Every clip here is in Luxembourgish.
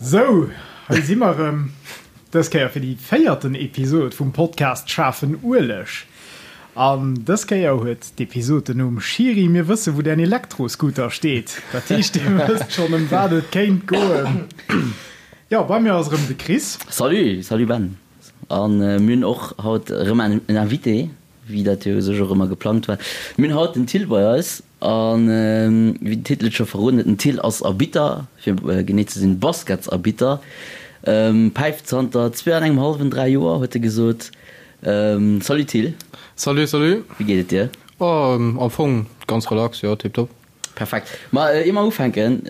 Sou, hei si mer erëm, dës Kéier fir déi véierten Episod vum Podcast Schaarfen Ueleg. An dës Kéier huet d'Episod den Numm Schiri, mir wësse wou däin Elektroscooter steet. Dat heescht, dir wësst schonn ëm wat et kéint goen. Jo, bei mir ass erëm de Chris. Salut, salut Ben. An mir hunn och haut erëm en Invité, wéi dat jo u sech och ëmmer geplangt war. Mir hunn haut den Till bei eis. An wéi den Titel et scho verroden huet, den Till ass Arbitter, fir genee ze sinn Basketsarbitter. Päift zanter zwee an engem hallwen, 3 Joer, huet e gesot. Salut Till. Salut, salut. Wéi geet et dir? Oh, am Fong ganz relax, jo, tiptop. Perfekt. Ma ier mer ufänken,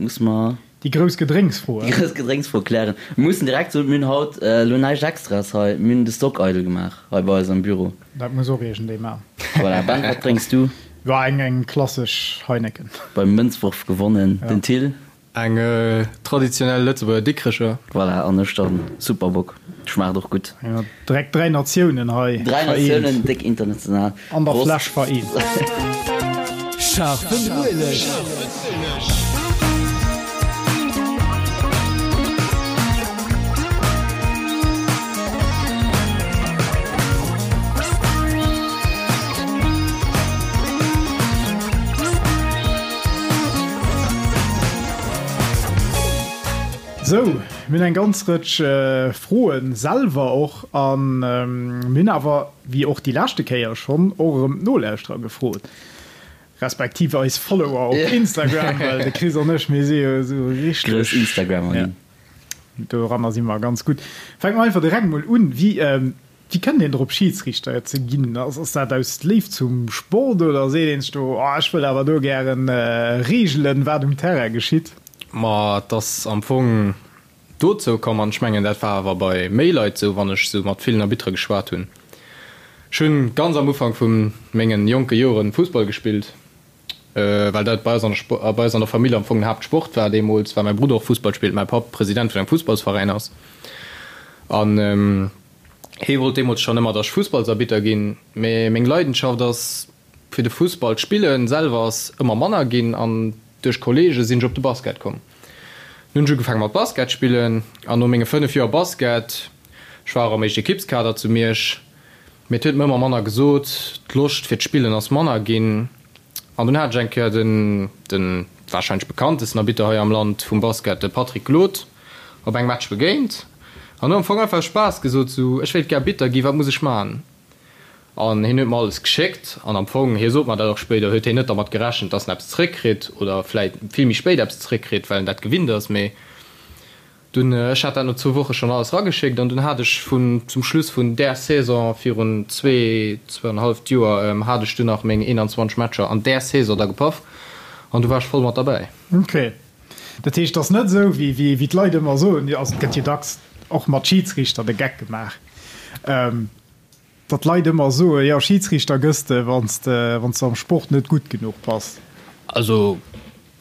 musse mer. Déi grouss Gedrénksfro. Déi grouss Gedrénksfro klären. Mir mussen direkt soen, mir hunn haut elo näischt Extraes hei. Mir hunn de Stock eidel gemaach hei bei eis am Büro. Dat muss och iergendee maachen. Voilà. Ben, wat drénks du? Jo, eng eng klassesch Heineken. Beim Mënzworf gewonnen, den Till. Eng traditionell Lëtzebuerger Dikrecher. Voilà, an ech dann Superbock. Schmaacht och gutt. Jo, direkt 3 Natiounen hei 3 vereent. Natiounen, déck international. An der Fläsch vereent. Scharfen Ueleg. Sou, mir hunn eng ganz Rëtsch Froen selwer och an mir hunn awer, wéi och déi leschte Kéier schonn, och erëm d'Nolauschterer gefrot, respektiv eis Follower op Instagram, well de Chris an ech, mir si jo esou richteg. Grouss Instagrammer ginn. Doranner si mer ganz gutt. Fänke mer einfach direkt mol un. Wéi Wéi kënnt een drop Schiidsriichter ze ginn? Ass dat aus Léift zum Sport oder seet een sech do, oh ech wëll awer do gären reegelen, wat um Terrain geschitt? Ma et ass am Fong dozou komm, an ech mengen dat war awer bei méi Leit esou, wann ech esou mat villen Arbittere geschwat hunn. Ech hunn ganz am Ufank vu mengen jonke Joren Fussball gespillt, well dat bei eis an der bei eis an der Famill am Fong den Haaptsport war deemools, well mäi Brudder och Fussball spillt, mäi Papp President vun engem Fussballsveräin ass an Hee wollt deemools schonn ëmmer, datt ech Fussballsarbitter ginn, mee meng Leidenschaft ass fir de Fussball. D'Spillen selwer ass ëmmer manner ginn an duerch Kolleege sinn ech op de Basket komm. Dunn hunn ech ugefaange mat Basket spillen an no menge 5 Joer Basket, ech war och am Éischt-Ekippskader zu Miersch, mee et huet mer ëmmer manner gesot, d'Loscht fir d'Spillen ass manner ginn. An dunn hat ech eng Kéier den, den warscheinlech bekanntesten Arbitter hei am Land vum Basket, de Patrick Glod, op engem Match begéint an hu am Fong einfach aus Spaass gesot, sou, ech wéilt gär Arbitter ginn, wat muss ech man? An hien huet mer alles geschéckt an am Fong, hie sot mer dat och spéider, huet hien net dermat gerechent, dass en eppes zeréckkritt oder vläit vill méi spéit eppes zeréckkritt, well en dat gewinnt ass. Mee dunn, ech hat dat no zwou Woche schonn alles erageschéckt an dunn hat ech vun, zum Schluss vun där Saison virun zwee, zwouanenhalleft Joer, hat ech dunn nach meng 21 Matcher an där Saison da gepaff an du war ech voll mat derbäi. Ok. Dat heescht, et ass net esou, wéi d'Leit ëmmer soen, also et gëtt jo dacks och mat Schidsriichter de Geck gemaach, datt d'Leit ëmmer soen, jo Schidsriichter gëss de, wann s de am Sport net gutt genuch bass. Also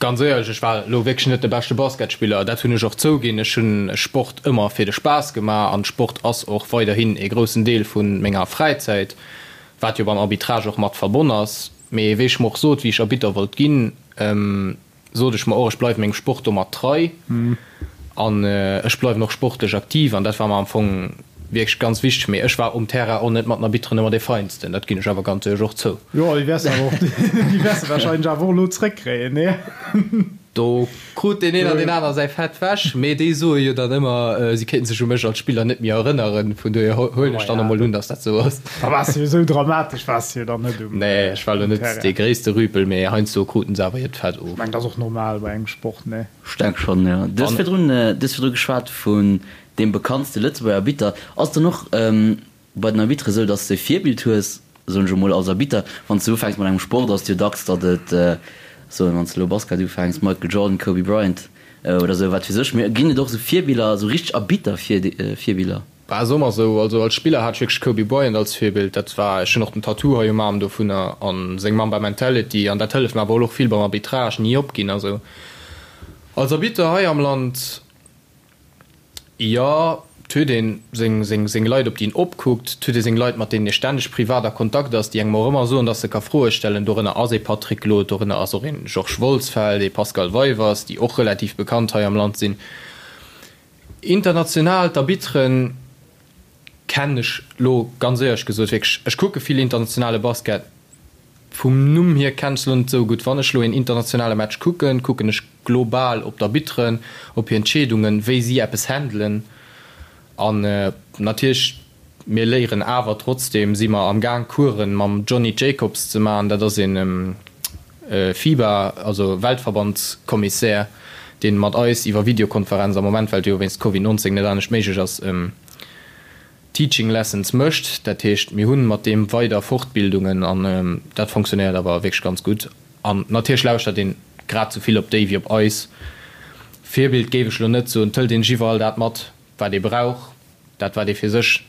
ganz éierlech, ech war elo wierklech net de beschte Basketspiller, dat hunn ech och zouginn. Ech hunn Sport ëmmer fir de Spaass gemaach an Sport ass och weiderhin ee groussen Deel vu menger Fräizäit, wat jo beim Arbitrage och mat verbonn ass. Mee wéi ech mer och sot, wéi ech Arbitter wollt ginn, sot ech mer och, ech bleiwen mengem Sport domat trei an ech bleiwen och sportlech aktiv an dat war mer am Fong wierklech ganz wichteg. Mee ech war um Terrain och net mat den Arbitteren ëmmer dee Feinsten, dat ginn ech awer ganz éierlech och zou. Jo, déi wäers de awer och, déi wäers de wahrscheinlech awer och elo zréckkréien, nee? Do krut deen een an deen aner säi Fett wech, mee déi soe jo dann ëmmer, si kéinten sech u mech als Spiller net méi erënneren. Vun dohier huelen ech dann emol un, datt dat esou ass. Da waars de jo esou dramatesch waars de jo dann net um Nee, ech war elo net dee gréisste Rüpel, mee heiansdo kruten se awer hiert Fett of. Ech mengen, dat ass och normal bei engem Sport, nee? Ech denk schonn, jo. Du hues virdrun, du hues virdru geschwat vun deem bekanntste Lëtzebuerger Arbitter. Ass dann och bei den Arbitere sou, dass de e Virbild hues, soen ech emol, als Arbitter, wann s de ufänks mat engem Sport, ass et jo dacks, datt et, soen, wann s de elo Basket ufänks, Michael Jordan, Kobe Bryant oder sou, wat weess ech, mee ginn et och sou Virbiller, sou richteg Arbitter-Virbiller? Bah, soe mer sou, also als Spiller hat ech wierklech Kobe Bryant als Virbild, dat war, ech hunn och den Tattoo hei um Aarm dovunner a seng Mamba Mentality an dat hëlleft mer awer och vill beim Arbitrage, ni opginn a sou. Als Arbitter hei am Land. Jo, 't huet een seng seng Leit op déi een opkuckt, 't huet ee seng Leit mat deenen ee stänneg privat a Kontakt ass, déi engem och ëmmer soen, datt se ka Froe stellen. Dorënner ass ee Patrick Glod, dorënner ass och een Georges Wolsfeld, ee Pascal Weivers, déi och relativ bekannt hei am Land sinn. International, d'Arbitteren kennen ech lo ganz éierlech gesot wierklech, ech kucke vill internationale Basket, vum Numm hier kennen ech se lo net esou gutt. Wann ech lo een internationale Match kucken, kucken ech global op d'Arbitteren, op hir Entscheedungen, wéi si eppes handelen an natierlech mir léieren awer trotzdeem, si mer am Gaang Coursen mam Johnny Jacobs ze maachen, dat ass een FIBA, also Weltverbandskommissär, dee mat eis iwwer Videokonferenz am Moment, well et jo wéinst Covid 19 net anescht méiglech ass, Teaching Lessons mécht. Dat heescht, mir hu mat deem weider Fortbildungen an dat fonctionnéiert awer wierklech ganz gutt. An natierlech lauschtert een grad sou vill op déi wéi op eis. Virbild géif ech elo net soen, et hëlt een sech iwwerall dat mat, wat ee brauch. Dat wat ee fir sech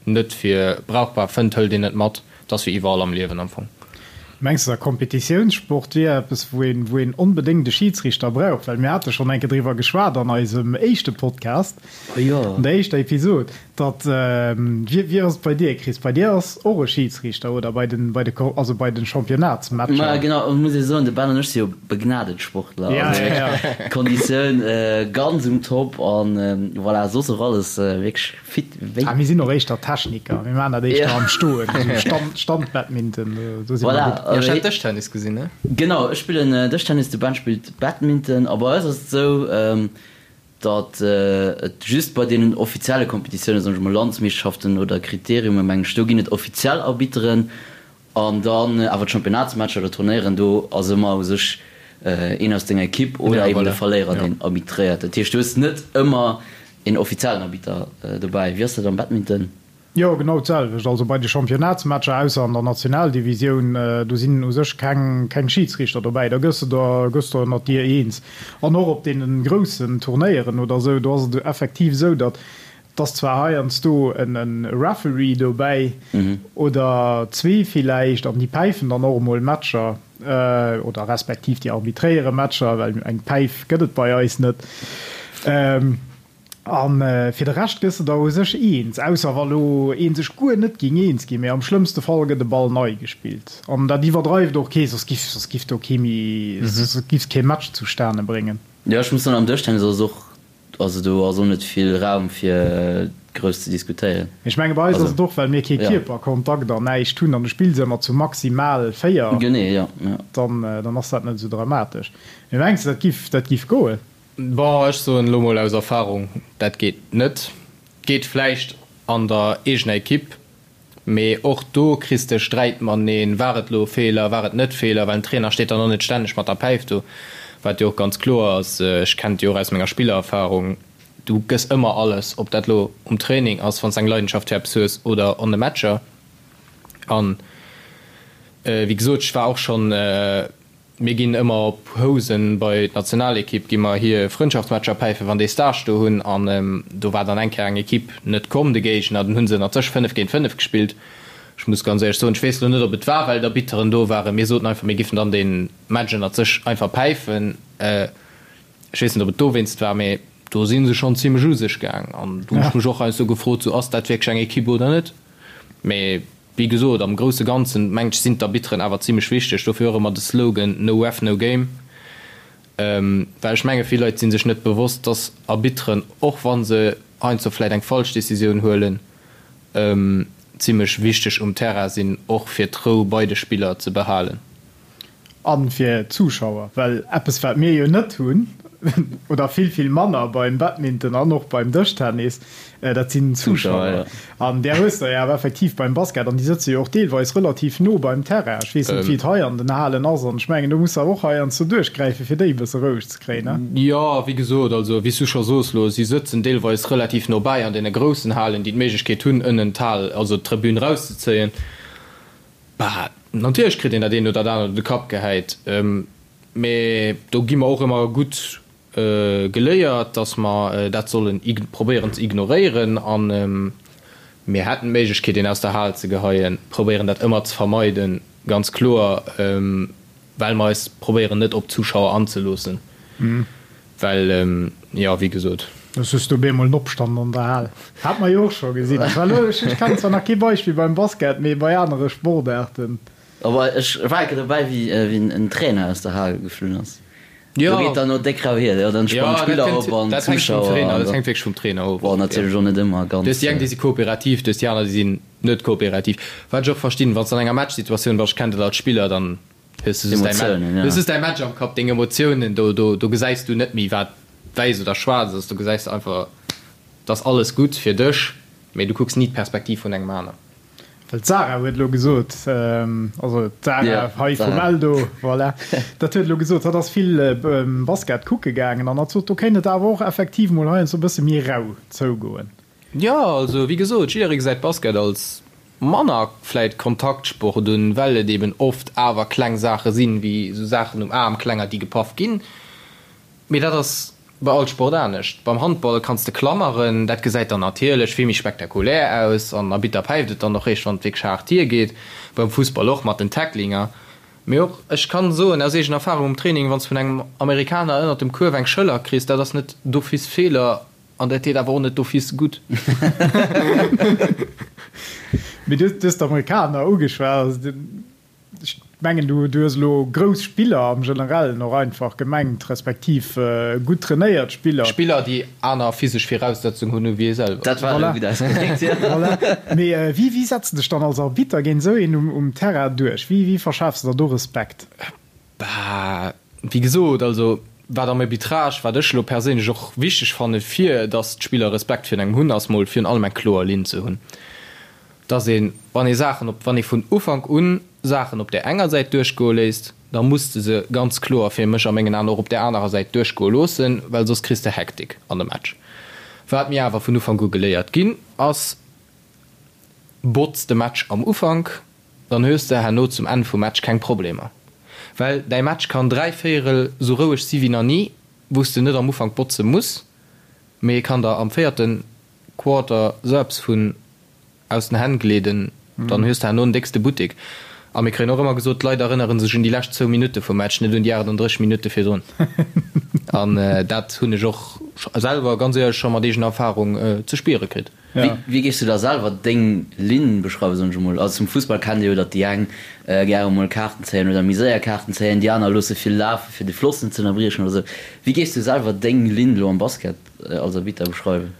net fir brauchbar fënnt, hëlt een net mat. Et ass wéi iwwerall am Liewen am Fong. Mengs de, Kompetitiounssport wier eppes, wou een, wou een onbedéngt e Schidsriichter brauch? Well mir hate schonn eng Kéier driwwer geschwat an eisem éischte Podcast, an der éischter Episod, datt, wéi, wéi ass et bei dir, Chris? Bei dir ass och e Schidsriichter, oder? Bei den, bei de, also bei den Championnatsmatcher? Ma genau, et muss ee soen, de Ben an ech si jo begnadet Sportler. Also wierklech Konditioun ganz um Top an voilà, soss och alles wierklech Fit wéi. Ah, mir sinn och éischter Techniker, mir maachen dat éischter am Stoen, esou Stand, Standbadminton, do si mer gutt. Voilà. Ech hat Dëschtennis gesinn, ne? Genau, ech spillen Dëschtennis, de Ben spillt Badminton. A bei eis ass et esou, datt et just bei deenen offizielle Kompetitiounen, soen ech mol Landsmeeschterschaften oder Kriteriume mengen ech, do ginn et offiziell Arbitteren. An dann awer d'Championnatsmatcher oder Turnéieren, do ass ëmmer u sech een aus denger Ekipp oder eben de Verléierer, deen arbitréiert. Dat heescht, du hues net ëmmer een offiziellen Arbitter dobäi. Wéi ass dat am Badminton? Jo, genau d'selwecht. Also bei de Championnatsmatcher, ausser an der Nationaldivisioun, do sinn u sech keng keng Schidsriichter dobäi. Da gëss de der gëss der ënnert dir eens. An och op deene groussen Turnéieren oder esou, do ass et effektiv esou, datt Et ass zwar heiansdo e Referee dobäi oder zwee villäicht an déi päifen dann och emol Matcher oder respektiv déi arbitréiere Matcher, well eng Päif gëtt et bei eis net. A fir de Rescht gëss de der u sech eens, ausser wa lo ee sech guer net géing eens ginn. Mee am schlëmmste Fall gëtt e Ball nei gespillt an dat iwwerdreift och kee, soss giff soss giff do kee méi, soss giffs kee Match zustane bréngen. Jo, ech muss soen, am Dëschtennis ass et och Also do ass och net vill Raum fir grouss ze diskutéieren. Ech menge bei eis ass et och well mir kee Kierperkontakt an näischt hunn an du spills ëmmer zu maximal 4, Genee, jo, jo. dann dann ass dat net esou dramatesch. Mee mengs de dat giff dat giff goen? Bon, ech soen elo mol aus Erfahrung, dat geet net. Geet vläicht an der eegener Ekipp, Mee och do kriss de Sträit mateneen, war et elo e Feeler, war et net Feeler, well den Trainer steet dann och net stänneg mat der Päif do, wat jo och ganz kloer ass. Ech kennen et jo och aus menger Spillererfarung, du gëss ëmmer alles, ob dat elo um Training ass, wann s de eng Leidenschaft fir eppes hues, oder an de Matcher. An wéi gesot, ech war och schonn. Mir ginn ëmmer op Housen bei d'Nationalekipp, gi mer hir Frëndschaftsmatcher päifen, wann déi Stage do hunn. An do war dann eng Kéier eng Ekipp net komm, de Géigner. Dann hu se ënnert sech 5 géint 5 gespillt. Ech muss ganz éierlech soen, ech weess elo net, ob et war, well d'Arbitteren do waren. Mir soten einfach, mir giffen dann dee Match ënnert sech einfach päifen. Ech weess net, ob et dowéinst war, mee do si se schonn zimlech u sech gaang. An do hunn ech mech och heiansdo gefrot, sou, ass dat wierklech eng Ekipp oder net? Mee Wéi gesot, am grousse Ganzen, mengt ech, sinn d'Arbitteren awer zimlech wichteg. Dofir och ëmmer de Slogan No ref, no game. Well ech menge vill Leit si sech net bewosst, dass Arbitteren, och wa se heiansdo vläicht eng falsch Decisioun huelen, zimlech wichteg um Terrain sinn, och fir d'Rou bei de Spiller ze behalen. A fir d'Zuschauer, well eppes wat mir jo net hunn, oder vill vill manner beim Badminton an och beim Dëschtennis, dat sinn d'Zuschauer. An där hues de jo awer effektiv beim Basket, an déi sëtze jo och deelweis relativ no beim Terrain. Ech weess net wéi et hei an den Halen ass, an ech mengen do muss de awer och heiansdo duerchgräife fir déi e bësse roueg ze kréien, ne? Jo, wéi gesot, also wéi s du scho soos elo, si sëtzen deelweis relativ no bäi an deene groussen Halen, déi d'Méiglechkeet hunn ënnen d'Hal, also d'Tribün erauszezéien. Bah, natierlech kritt een dat eent oder dat anert op de Kapp gehäit, mee do gi mer och ëmmer gutt geléiert, dass mer dat sollen probéieren ze ignoréieren. A mir hätten d'Méiglechkeet, een aus der Hal ze geheien, probéieren dat ëmmer ze vermeiden, ganz kloer. Well mer eis probéieren net op d'Zuschauer anzeloossen, well jo, wéi gesot. Soss hues du op eemol en Opstand an der Hal. Hat mer jo och scho gesinn. Ech war elo, ech kennen zwar nach kee Beispill beim Basket, mee bei anere Sportaarten. Awer ech war eng Kéier dobäi, wéi en Trainer aus der Hal geflunn ass. Do geet dann no déck rau hier, jo, dann sprangen d'Spiller op an d'Zuschauer. Dat hänkt wierklech vum Trainer of. Bon, natierlech och net ëmmer ganz. Du hues déi eng, déi si kooperativ, du hues déi aner, déi sinn net kooperativ. Wat ech och verstinn, wann s de an enger Matchsituatioun bass, ech kennen dat als Spiller, dann hues du just däi Match, hues just däi Match am Kapp, deng Emotiounen, do, do, do gesäis du net méi, wat wäiss oder schwaarz ass, do gesäis de einfach, et ass alles gutt fir dech, mee du kucks ni d'Perspektiv vun engem aner. Well d'Sarah huet elo gesot, also d'Sarah hei vum Eldo, voilà, dat huet elo gesot, hatt ass vill Basket kucke gaangen an hatt sot, do kéint et awer och effektiv mol heiansdo e bësse méi rau zougoen. Jo, also wéi gesot, jidderee gesäit Basket als manner vläit Kontaktsport un, well et eben oft awer kleng Saache sinn, wéi esou Saachen um Aarm, klenger, déi gepaff ginn. Mee dat ass bei all Sport anescht. Beim Handball kanns de klammeren, dat gesäit dann natierlech vill méi spektakulär aus an Arbitter päift et dann och réischt wann et wierklech haart hiergeet. Beim Fussball och mat den Tacklinger. Mee och ech kann soen aus eegener Erfahrung um Training, wann s vun engem Amerikaner ënnert dem Kuerf eng Schëller kriss, dat ass net d'office Feeler an dat deet awer och net d'office gutt. Mee du hues d'Amerikaner ugeschwat. Ech mengen, du hues elo grouss Spiller am Generellen och einfach gemengt, respektiv gutt trainéiert Spiller. Spiller, déi aner physesch Viraussetzungen hunn ewéi ee selwer. Dat war elo gutt ausgedréckt, jo. Voilà. Mee wéi, wéi setz de dech dann als Arbitter géint esou een um Terrain duerch? Wéi, wéi verschafs de der do Respekt? Bah, wéi gesot, also wat am Arbitrage, wat ech elo perséinlech och wichteg fanne fir datt d'Spiller Respekt virun engem hunn, ass mol virun allem eng kloer Linn ze hunn. Dass een, wann ee Saachen op, wann ee vun Ufank un Saachen op där enger Säit duerchgoe léisst, da muss de se ganz kloer fir mech a mengen Aen och op där anerer Säit duerchgoe loossen, well soss kriss de Hektik an de Match. Wat mir awer vun Ufank u geléiert ginn ass, Botz de Match am Ufank, dann hues de herno zum Enn vum Match keng Problemer. Well däi Match kann dräivéierel sou roueg si wéi nach ni, wou s de net am Ufank botze muss, mee e kann der am véierte Quarter sou eppes vun aus den Hänn gleeden, dann hues de herno den déckste Buttek. A mir kréien och ëmmer gesot, d'Leit erënnere sech un déi lescht zwou Minutte vum Match, net un déi 38 Minutte virdrun. An dat hunn ech och selwer, ganz éierlech, scho mat eegener Erfarung ze spiere kritt. Wéi géifs du da selwer deng Linn beschreiwen, soen ech emol? Also zum Fussball kennt ee jo, datt déi eng gäre mol Kaarten zéien oder méi séier Kaarten zéien, déi aner loosse vill lafe fir de Floss net ze ënnerbriechen oder esou. Wéi géifs du selwer deng Linn elo am Basket als Arbitter beschreiwen?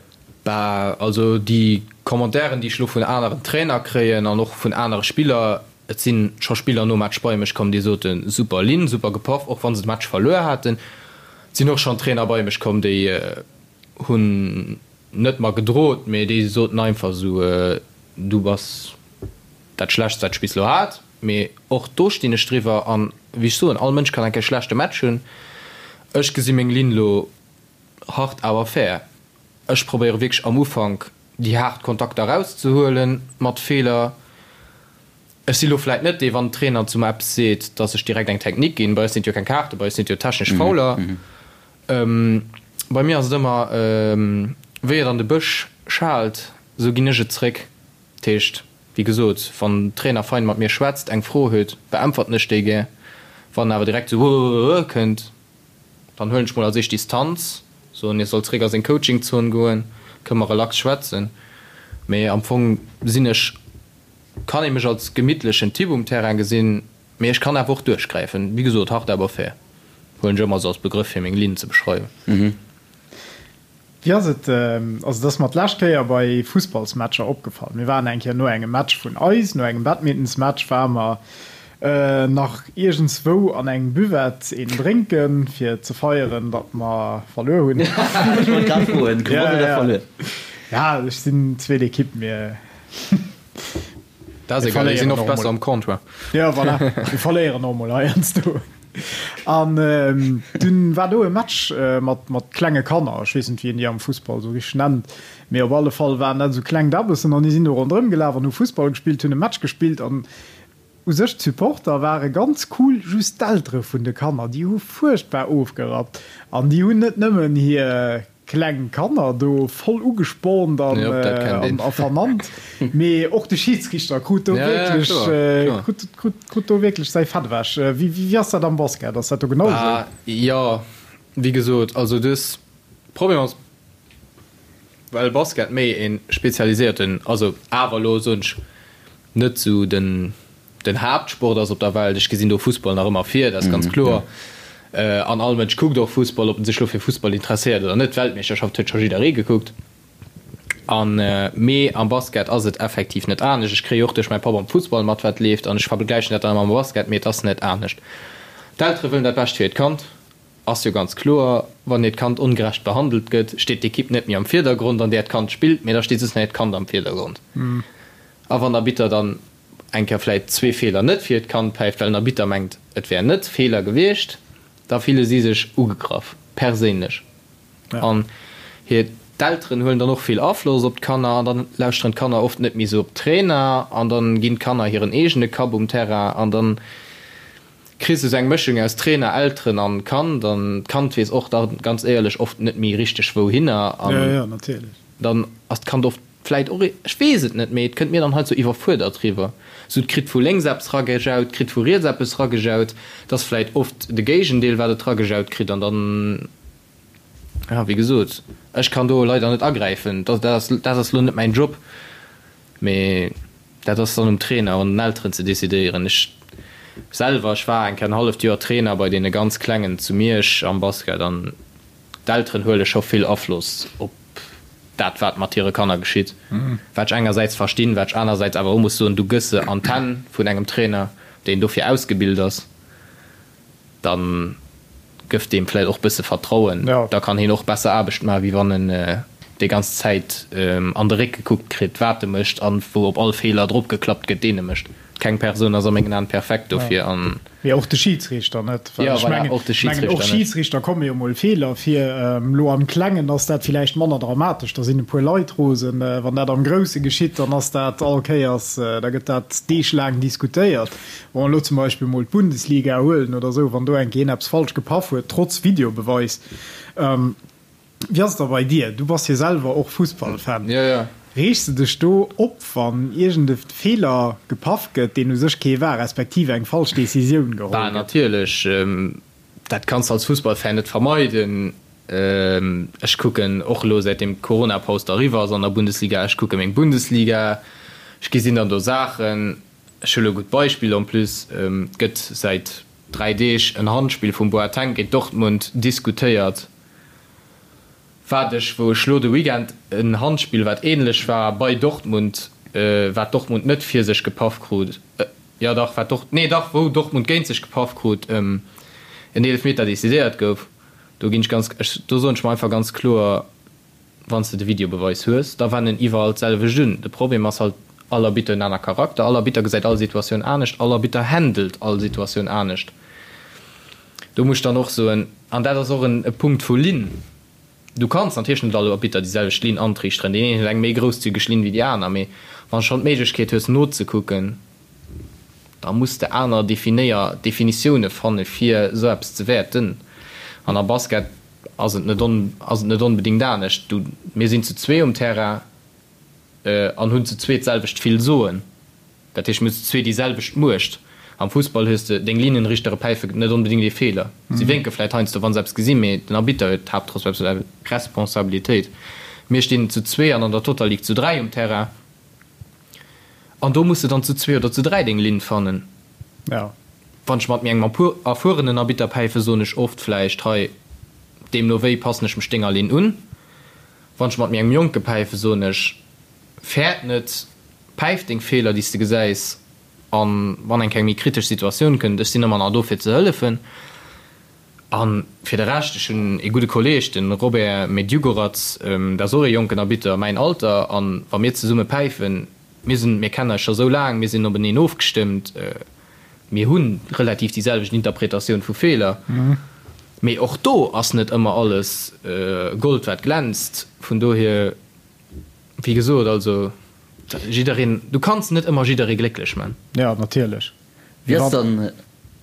Bah, also déi Commentairen, déi ech elo vun aneren Trainer kréien an och vun anere Spiller, et si scho Spiller nom Match bei mech komm, déi soten, super Linn, super gepaff, och wa se de Match verluer haten. Et sinn och schonn Trainer bei mech komm, déi hunn net mer gedrot, mee déi soten einfach esou, du bass dat Schlechtst, wat ech bis elo hat. Mee och do stinn ech driwwer an, wéi ech soen, all Mënsch kann eng Kéier schlechte Match hunn. Ech gesi meng Linn elo hart awer fair. Ech probéiere wierklech am Ufank déi haart Kontakter erauszehuelen mat Feeler. Ech si lo vläit net dee, wann den Trainer zu mer eppes seet, datt ech direkt eng Technique ginn. Bei eis sinn et jo keng Kaarten, bei eis sinn et jo technesch Fouler. Bei mir ass et ëmmer, wéi et an de Bësch schaalt, esou ginn ech et zréck. Dat heescht, wéi gesot, wann den Trainer fein mat mir schwätzt, eng Fro huet, beäntwerten ech déi gär. Wann en awer direkt esou kënnt, Dann huelen ech mol als éischt Distanz, soen hie soll zréck a seng Coaching-Zon goen, kënne mer relax schwätzen. Mee am Fong sinn ech, kann ee mech als gemittlechen Typ um Terrain gesinn, mee ech kann awer och duerchgräifen. Wéi gesot, hart awer fair huelen ech ëmmer esou als Begrëff fir meng Linn ze beschreiwen. Wéi ass et, also et ass mer d'lescht Kéier bei Fussballsmatcher opgefall, mir waren eng Kéier no engem Match vun eis, no engem Badmintonsmatch ware mer nach iergendswou an engem Buvette een drénken, fir ze feieren, datt mer verluer hunn. Ech wollt grad froen, gewonnen oder verluer? Ja, ech sinn zweet Ekipp, mir Dat ass egal, déi sinn oft besser am Comptoir. Jo, voilà, mir verléieren och mol heiansdo. An dunn war do e Match mat mat klenge Kanner, ech weess net wéi een déi am Fussball esou richteg nennt, mee op alle Fall waren dat esou kleng Dabbessen an déi sinn do ronderëm gelaf an hu Fussball gespillt, hunn e Match gespillt an u sech d'Supporter ware ganz cool, just d'Eltere vun de Kanner, déi hu fuerchtbar ofgerappt an déi hunn net nëmmen hir Kleng Kanner do voll ugespornt an a vernannt, mee och de Schiedsrichter krut do wierklech krut do wierklech säi Fett ewech. Wéi ass dat am Basket? Ass dat do genau esou? Jo, wéi gesot, also dës Problem ass, well Basket méi e spezialiséierten, also awer elo soen ech net esou den den Haaptsport ass op der Welt. Ech gesinn do Fussball nach ëmmer vir, dat ass ganz kloer. An all Mënsch kuckt och Fussball, ob en sech lo fir Fussball interesséiert oder net. D'Weltmeeschterschaft huet scho jidderee gekuckt. An mee am Basket ass et effektiv net anescht. Ech kréie och duerch mäi Papp am Fussball mat wat leeft an ech vergläichen dat dann ëmmer mam Basket, mee et ass net anescht. D'Eltere wëllen dat Bescht fir hiert Kand, ass jo ganz kloer. Wann hiert Kand ongerecht behandelt gëtt, steet d'Ekipp net méi am Virdergrond an där d'Kand spillt, mee da steet just nach hiert Kand am Virdergrond. A wann der Arbitter dann eng Kéier vläit zwee Feeler net fir hiert Kand päift, well den Arbitter mengt et wär net Feeler gewiescht, da fille si sech ugegraff, perséinlech. An hir d'Elteren huelen dann och vill Afloss op d'Kanner an dann lauschteren d'Kanner oft net méi sou op d'Trainer an dann ginn d'Kanner hiren eegene Kapp um Terrain an dann kriss de sou eng Mëschung aus Trainer, Elteren an Kand an d'Kand weess och da ganz éierlech oft net méi richteg wouhinner an dann ass d'Kand oft vläit och, ech weess et net, mee et kënnt mir dann halt sou iwwerfuerdert riwwer, sou et kritt vu lénks eppes ragejaut, kritt vu riets eppes ragejaut, et ass vläit oft de Géigendeel wat et ragejaut kritt an dann. Jo, wéi gesot, ech kann do leider net agräifen. Dat ass, dat ass elo net mäin Job, mee dat ass dann um Trainer an den Elteren ze decidéieren. Ech selwer, ech war eng Kéier en halleft Joer Trainer bei deene ganz Klengen zu Miersch am Basket an d'Elteren huele scho vill Afloss op dat, wat mat hire Kanner geschitt. Wat ech engersäits verstinn, wat ech anersäits awer och muss soen, du gëss se an d'Hänn vun engem Trainer, deen dofir ausgebilt ass. Dann gëff deem vläit och bësse Vertrauen, da kann hien och besser Aarbecht maachen, wéi wann en déi ganz Zäit an de Réck gekuckt kritt, wat e mécht an wou op all Feeler drop geklappt gëtt, deen e mécht. Keng Persoun ass a mengen Aen perfekt dofir an. Mee och de Schidsriichter net. Well ech mengen, och de Schidsriichter net. Och Schidsriichter komme jo mol Feeler vir. Elo am Klengen ass dat villäicht manner dramatesch, da sinn e puer Leit rosen. Wann dat am Grousse geschitt, dann ass dat all Kéiers, da gëtt dat deeglaang diskutéiert. Wa mer elo zum Beispill mol d'Bundesliga huelen oder esou, wann do eng Kéier een eppes falsch gepaff huet, trotz Videobeweis. Wéi ass et da bei dir? Du bass jo selwer och Fussballfan. Jo, jo. Reegs de dech do op, wann iergend e Feeler gepaff gëtt, deen u sech kee war, respektiv eng falsch Decisioun geholl gëtt? Bah, natierlech. Dat kanns de als Fussballfan net vermeiden. Ech kucken och elo, säitdeem d'Coronapaus da eriwwer ass an der Bundesliga, ech kucke meng Bundesliga, ech gesinn dann do Saachen. Ech hu lo e gutt Beispill en plus, Et gëtt säit 3 Deeg en Handspill vum Boateng géint Dortmund diskutéiert, wat ech, wou ech lo de Weekend en Handspill, wat ähnlech war, bei Dortmund, wat Dortmund net fir sech gepaff krut, jo dach, wat Dort, nee dach, wou Dortmund géint sech gepaff krut, en Eelefmeter decidéiert gouf. Do ginn ech ganz, ech, do soen ech mer einfach ganz kloer, Wann s de de Videobeweis hues, da wenden iwwerall d'selwecht un. De Problem ass halt, all Arbitter huet en aner Charakter, all Arbitter gesäit all Situatioun anescht, all Arbitter handelt all Situatioun anescht. Do muss ech dann och soen, an dat ass och en e Punkt vu Linn, du kanns natierlech net all Arbitter déi selwecht Linn antriichteren, deen een huet eng méi grousszügeg Linn wéi déi aner, mee wann s schonn d'Méiglechkeet hues nozekucken, da muss de aner Definéier Definitioune fanne fir esou eppes ze wäerten. An am Basket ass et net on, ass et net onbedéngt anescht. Du, mir sinn zu zwee um Terrain an hunn zu zwee d'selwecht vill Soen. Dat heescht, mir hunn zu zwee déi selwecht Muecht. Am Fussball hues de deng Linienrichtere päife net onbedéngt ee Feeler. Si wénke vläit heiansdo, wa se eppes gesinn, mee den Arbitter huet d'Haaptresponsabilitéit. Mir stinn zu zwee an an der Total League zu dräi um Terrain. An do muss de dann zu zwee oder zu dräi deng Linn fannen. Ja. Wann ech mat engem erfuerenen Arbitter päifen, soen ech oft vläicht, hei, deemno wéi passen ech mech denger Linn un. Wann ech mat méi engem Jonke päifen, soen ech, fäert net, päif deng Feeler, déi s de gesäis, an wann eng Kéier eng méi kritesch Situatioun kënnt, ech sinn ëmmer nach do fir ze hëllefen. A fir de Rescht, ech hunn ee gudde Kolleeg, de Robert Medjugorac, dat ass och ee jonken Arbitter, mäin Alter, a wa mir zesumme päifen, mir sinn, mir kennen eis scho sou laang, mir sinn openeen ofgestëmmt, mir hu relativ déi selwecht Interpretatioun vu Feeler, mee och do ass net ëmmer alles Gold wat glänzt. Vun dohier, wéi gesot, also jiddereen, du kanns net ëmmer jidderee glécklech man. Jo, natierlech. Wéi ass dann,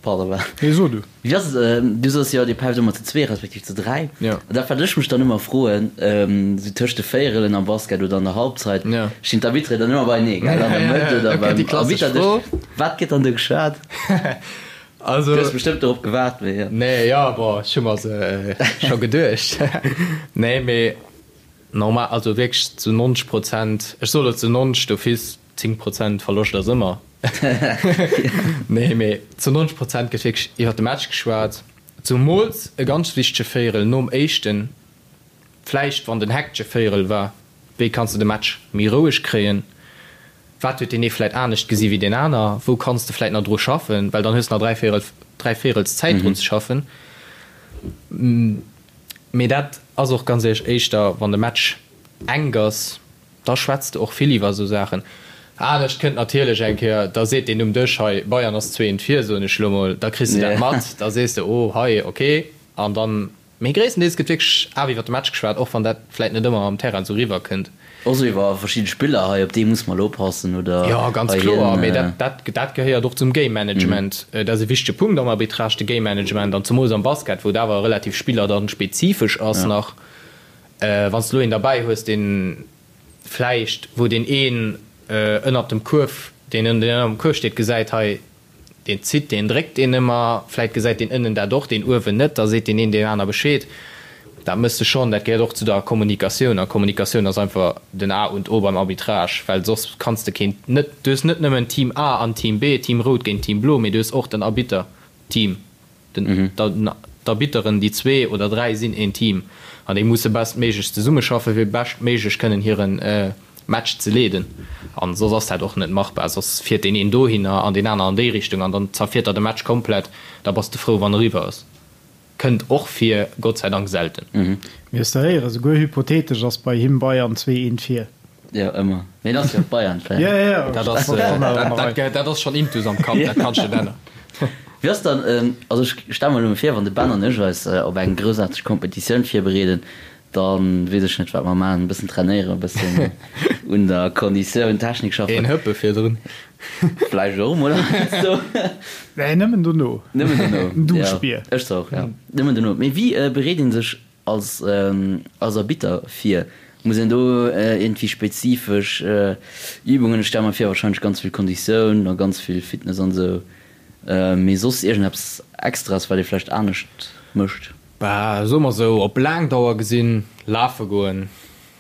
pardon, wa. Nee, so du. Wéi ass et, du soos jo, dir päift ëmmer zu zwee respektiv zu dräi. Jo. An dat, wat ech mech dann ëmmer froen, esou tëscht de Véierelen am Basket oder an der Halbzeit, stinn d'Arbitteren dann ëmmer beienee, gell, an der Mëtt oder beim Arbitterdësch. Wat gëtt dann do geschwat? Also. Du hues bestëmmt dorop gewaart, mee jo. Nee, jo, bon, ech hu mer se scho geduecht. Nee, mee normal, also wierklech zu 90 Prozent, ech soe lo zu 90 d'office, 10 Prozent Verloscht ass ëmmer. Nee, mee zu 90 Prozent gëtt wierklech iwwer de Match geschwat. Zumools e ganz wichtege Véierel nom éischten, vläicht wann den hektesche Véierel war, wéi kanns de de Match méi roueg kréien, wat huet deen ee vläit anescht gesi wéi deen aner, wou kanns de vläit nach dru schaffen, well dann hues de nach 3 Véierel, 3 Véierels Zäit drun ze schaffen. Mee dat ass och ganz éierlech éischter wann de Match enk ass. Da schwätz de och vill iwwer esou Saachen. Anescht kënnt natierlech eng Kéier, da seet deen um Dësch, hei, Bayern ass 2 eent vir, soen ech elo mol, da kriss de dat mat, da sees de, oh hei, ok. An dann, mee gréisstendeels gëtt wierklech awer iwwer de Match geschwat, och wann dat vläit net ëmmer am Terrain esou eriwwer kënnt. Och esou iwwer verschidde Spiller, hei op dee muss mer elo oppassen oder Jo, ganz hei kloer, hien. Mee dat, dat, dat gehéiert och zum Game Management. Dat ass e wichtege Punkt am Arbitrage, de Game Management, an zemools am Basket, wou et awer relativ Spiller dann spezifesch ass nach. Wann s de elo een derbäi hues, deen vläicht, wou deen een ënnert dem Kuerf, deen ënnert dem Kuerf steet, gesäit, hei, deen zitt, deen dréckt deen ëmmer, vläicht gesäit deen ënnen dat och, deen uewen net, da seet deen een deem aner Bescheed. Dat méchs de schonn, dat gehéiert och zu der Kommunikatioun. A Kommunikatioun ass einfach den A und O beim Arbitrage, well soss kanns de keen, net, du hues net nëmmen Team A an Team B, Team Rout géint Team Blo, mee du hues och den Arbitter-Team. D'Arbitteren, déi zwee oder dräi sinn een Team an déi musse bestméiglechst zesummeschaffen, fir beschtméiglech kënnen hire Match ze leeden. An soss ass dat och net machbar. Soss fiert deen een dohinner an deen aner an déi Richtung an dann zerfiert der de Match komplett. Da bass de frou, wann eriwwer ass. Kënnt och vir, Gott sei Dank selten. Mir hues de héieren, souguer hypothetesch ass bei him Bayern 2 eent vir. Jo, ëmmer. Mee en ass jo och Bayern-Fan. Jo, jo, jo. Dat ass, dat, dat ass schonn intus am Kapp, dat kanns de net änneren. Wéi ass dann, also ech stelle mer elo vir, wann de Ben an ech eis op eng groussaarteg Kompetitioun virbereeden, da weess ech net, wat mer maachen, e bëssen trainéieren, e bëssen un der Konditioun, Technik schaffen. Een Hëppe virdrun. Vläicht och emol heiansdo. Nee, nëmmen dono. Nëmmen dono. En Duschbier. Jo, ech zwar och, jo. Nëmmen dono. Mee wéi bereet ee sech Als als Arbitter vir, muss een do iergendwéi spezifesch Übungen, ech stelle mer vir wahrscheinlech ganz vill Konditioun a ganz vill Fitness an esou, mee soss iergendeppes Extras wat ee vläicht anescht mécht? Bah, soe mer esou, op laang Dauer gesinn, lafe goen,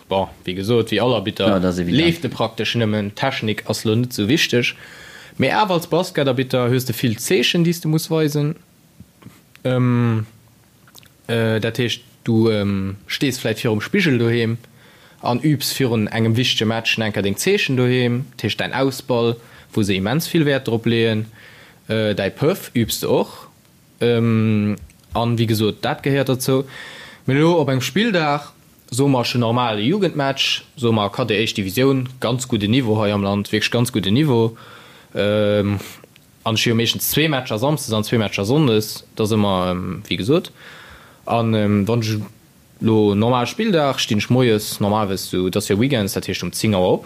bon, wéi gesot, wéi all Arbitter leeft e praktesch nëmmen, Technik ass lo net esou wichteg, mee awer als Basketarbitter hues de vill Zeechen déi s de muss weisen. Dat heescht, du stees vläit virum Spigel doheem an übs virun engem wichtege Match nach eng Kéier deng Zeechen doheem, dat heescht däin Ausball, wou se immens vill Wäert drop leeën, däi Pëff übs de och. An wéi gesot, dat gehéiert derzou. Mee elo op engem Spilldag, soe mer, ech hunn normal e Jugendmatch, soe mer Cadet éischt Divisioun, ganz gudden Niveau hei am Land, wierklech ganz gudden Niveau, An ech hu jo meeschtens zwee Matcher samsdes an zwee Matcher sonndes, dat ass ëmmer wéi gesot. An wann ech elo normal Spilldag, stinn ech moies normalerweis sou, et ass jo Weekends, dat heescht um 10 Auer op.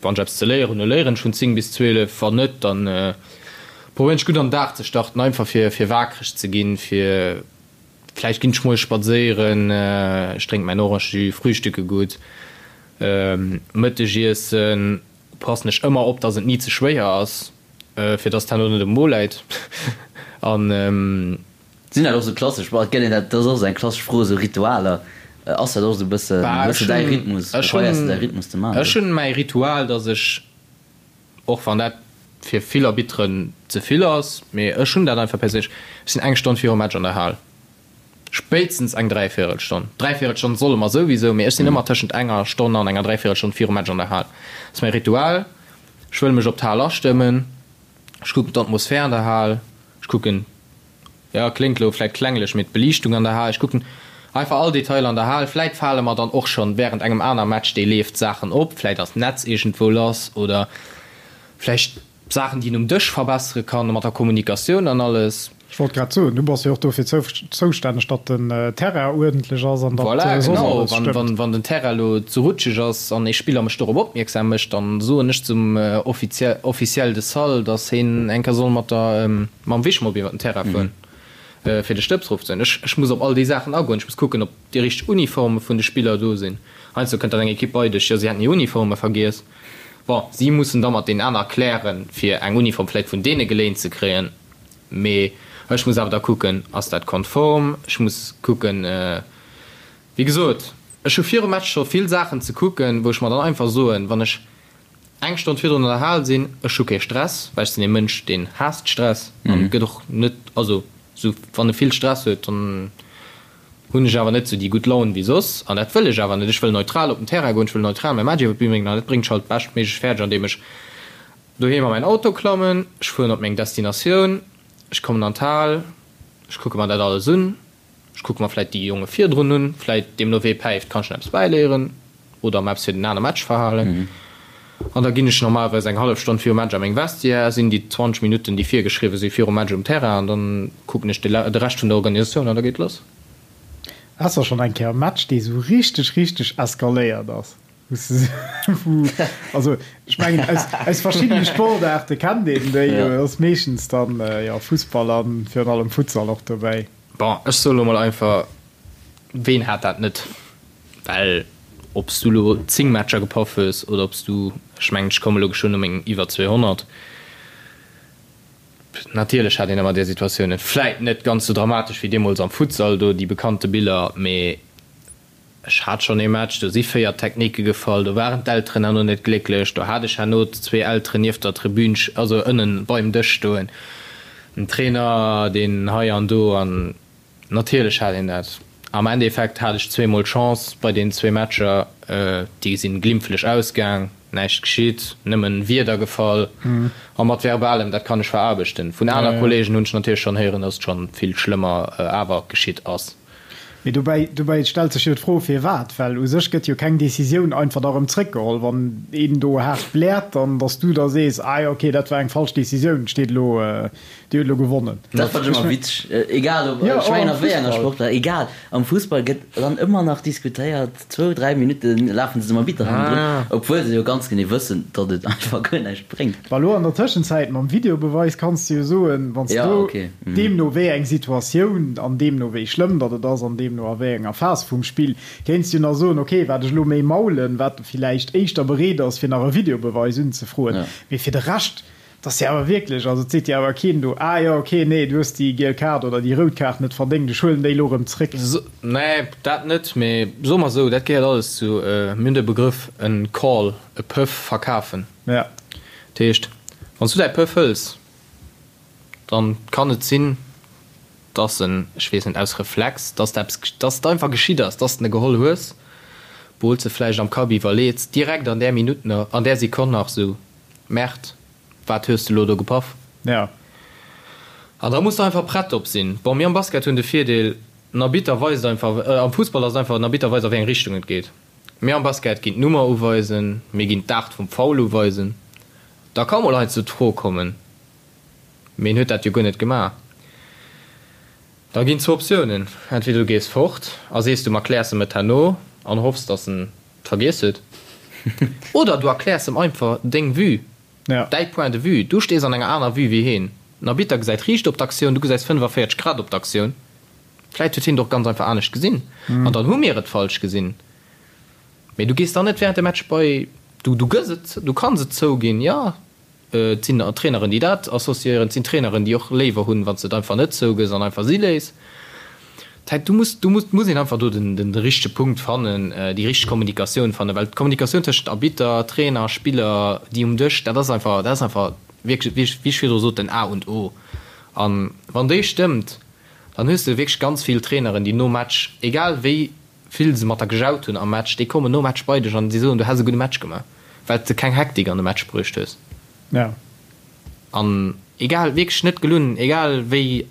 Wann ech eppes ze léieren hunn, da léieren ech vun 10 bis 12, wann net, dann probéieren ech gutt an den Dag ze starten, einfach fir fir waakreg ze ginn, fir vläicht ginn ech moies spadséieren, ech drénke mäin Orangejus, frühstücke gutt, Mëttegiessen. Passen ech ëmmer op, dass et ni ze schwéier ass, fir dass et herno net um Mo läit. An. Sinn dat och sou klassesch, bon et gëtt een dat, dat ass och sou eng klassesch Fro, sou Ritualer, ass dat och sou e bëssen, hues du däi Rhythmus, probéiers du däi Rhythmus ze maachen? Ech hunn mäi Ritual, dass ech, och wann dat fir vill Arbitteren ze vill ass, mee ech hunn dat einfach perséinlech, ech sinn eng Stonn virum Match an der Hal. Spéitstens eng Dräivéierelstonn. Dräivéierelstonn solle mer souwisou, mee ech sinn ëmmer tëschent enger Stonn an enger Dräivéierelstonn virum Match an der Hal. Dat ass mäi Ritual. Ech wëll mech op d'Hal astëmmen. Ech kucken d'Atmosphär an der Hal. Ech kucken, jo, kléngt elo vläicht klenglech, mee d'Beliichtung an der Hal. Ech kucken einfach all Detailer an der Hal. Vläicht fale mer dann och schonn wärend engem aner Match, dee leeft, Saachen op. Vläicht ass d'Netz iergendwou lass oder vläicht Saachen, déi een um Dësch verbessere kann, mat der Kommunikatioun an alles. Ech wollt grad soen, du bass jo och dofir zoustänneg, datt den Terrain uerdentlech ass an datt Voilà, soss genau. alles stëmmt. Wann den Terrain elo ze rutscheg ass an ee Spiller mech dorop opmierksam mécht, dann soen ech zum Officiel de salle, datt heen eng Kéier soll mat der, mam Wischmopp iwwer den Terrain fueren, fir de Stëbs erofzehuelen. Ech, ech muss op all déi Saachen agoen. Ech muss kucken, ob déi richteg Uniforme vun de Spiller do sinn. Heiansdo kënnt dann eng Ekipp bei dech, jo, si hätten hir Uniforme vergiess. Bon, si mussen da mat deenen aner klären, fir eng Uniform vläicht vun deene geléint ze kréien. Mee ech muss awer da kucken, ass dat konform? Ech muss kucken, wéi gesot, ech hu virum Match scho vill Saachen ze kucken, wou ech mer dann einfach soen, wann ech eng Stonn virdrun an der Hal sinn, ech hu kee Stress, well ech sinn ee Mënsch, deen haasst Stress an gëtt och net, also. Sou wann e vill Stress huet, dann hunn ech awer net sou déi gutt Laun wéi soss an dat wëll ech awer net. Ech wëll neutral op den Terrain goen, ech wëll neutral mäi Match iwwer d'Bün bréngen an dat bréngt ech halt beschtméiglech fäerdeg andeem ech doheem a mäin Auto klammen, ech fueren op meng Destinatioun, ech kommen an d'Hal, ech kucke mer dat alles un, Ech kucke mer vläit déi Jonge virdrun un, vläit deemno wee päift, kann ech nach eppes bäiléieren oder mer eppes fir den aner Match verhalen. An da ginn ech normalerweis eng hallef Stonn virum Match a meng Vestiaire, sinn déi 20 Minutten, déi virgeschriwwe si virum Match um Terrain an dann kucken ech de Rescht vun der Organisatioun an da geet lass. Ass der schonn eng Kéier e Match, dee sou richteg, richteg eskaléiert ass? Also ech mengen aus, aus verschiddene Sportaarte kennt een déi jo, ass meeschtens dann jo Fussball an virun allem Futsal och dobäi. Bon, ech soe lo mol einfach, ween hat dat net? Well ob s du lo 10 Matcher gepaff hues oder ob s du, ech mengen ech komme lo geschwënn u meng iwwer 200, natierlech hat een ëmmer där Situatiounen. Vläit net ganz sou dramatesch wéi deemools am Futsal do, déi bekannte Biller, mee Ech hat schonn ee Match, do si 4 Techniquë gefall, do waren d'Elteren herno net glécklech, do hat ech herno zwee Elteren nieft der Tribün, also ënnen beim Dësch stoen, en Trainer, deen hei an do, an natierlech hat een dat. Am Endeffekt hat ech zweemol Chance bei deenen zwee Matcher, déi sinn glimpflech ausgaang, näischt geschitt, nëmmen Wierder gefall a mat Verbalem, dat kann ech veraarbechten. Vun aner Kollegen hunn ech natierlech schonn héieren, dass et schonn vill schlëmmer awer geschitt ass. Mee dobäi, dobäi stellt sech jo d'Fro, firwat? Well u sech gëtt jo keng Decisioun einfach da erëm zréckgeholl. Wann een do haart bläert, dann, datt s du da sees, ah jo, okay, dat war eng falsch Decisioun, steet elo, Dir hutt elo gewonnen. Dat fannen ech ëmmer witzeg, egal ob, ech mengen a wéi enger Sportaart, egal, am Fussball gëtt dann ëmmer nach diskutéiert, zwou, dräi Minutte lafen se dem Arbitter hannendrun, obwuel se jo ganz genee wëssen, datt et einfach guer näischt bréngt. Bah lo an der Tëschenzäit mam Videobeweis kanns de jo soen, wann s du deemno wéi eng Situatioun an deemno wéi schlëmm datt et ass an deemno a wéi enger Phas vum Spill, kéints du nach soen, ok wat ech elo méi maulen, wat villäicht éischter bereet ass fir nach e Videobeweis unzefroen. Mee fir de Rescht, 't ass jo awer wierklech, also et seet jo awer keen do, ah jo ok, nee du hues déi giel Kaart oder déi rout Kaart net verdéngt, ech huelen déi elo erëm zréck. Nee, dat net, mee soe mer esou, dat gehéiert alles zu, mir hunn de Begrëff en Call, e Pëff verkafen. Ja. Dat heescht, wann s du däi Pëff hëls, dann kann et sinn, dass en, ech weess net, aus Reflex, dass de eppes, dass et einfach geschitt ass, dass de e geholl hues, obwuel s de vläicht am Kapp iwwerleets, direkt an där Minutt nach, an där Sekonn nach esou, Merde, wat hues de elo do gepaff? Ja. An da muss de einfach prett drop sinn. Bon, mir am Basket hunn de Virdeel, den Arbitter weist einfach, am Fussball ass et einfach, den Arbitter weist a wéi eng Richtung et geet. Mir am Basket ginn d'Nummer uweisen, mir ginn d'Aart vum Foul uweisen. Da ka mol heiansdo d'Fro kommen, mee en huet dat jo guer net gemaach. Da ginn zwou Optiounen, entweder du gees fort a sees du erkläers em et herno an hoffs, dass en et vergiess huet, oder du erkläers em einfach deng Vue, däi Point de vue. Du stees an enger aner Vue wéi heen. Den Arbitter gesäit riicht op d'Aktioun, du gesäis 45 Grad op d'Aktioun. Vläit huet hien et och ganz einfach anescht gesinn an dann hu mir et falsch gesinn. Mee du gees dann net während dem Match bei, du, du gëss et, du kanns et zouginn, jo, et sinn Traineren, déi dat associéieren, et sinn Traineren, déi och léiwer hunn, wann s de et einfach net zougëss an einfach si léiss. Dat heescht, du muss, du muss, muss een einfach do den, den richtege Punkt fannen, déi richteg Kommunikatioun fannen, well d'Kommunikatioun tëschent Arbitter, Trainer, Spiller, déi um Dësch, dat ass einfach, dat ass einfach wierklech, wéi ech, wéi ech virdru sot, den A und O. An wann déi stëmmt, Dann hues de wierklech ganz vill Traineren, déi nom Match, egal wéi vill se mat der gejaut hunn am Match, déi kommen nom Match bei dech an déi soen, du häss e gudde Match gemaach, well s de keng Hektik an de Match bruecht hues. Ja. An egal, wierklech net gelunn, egal wéi,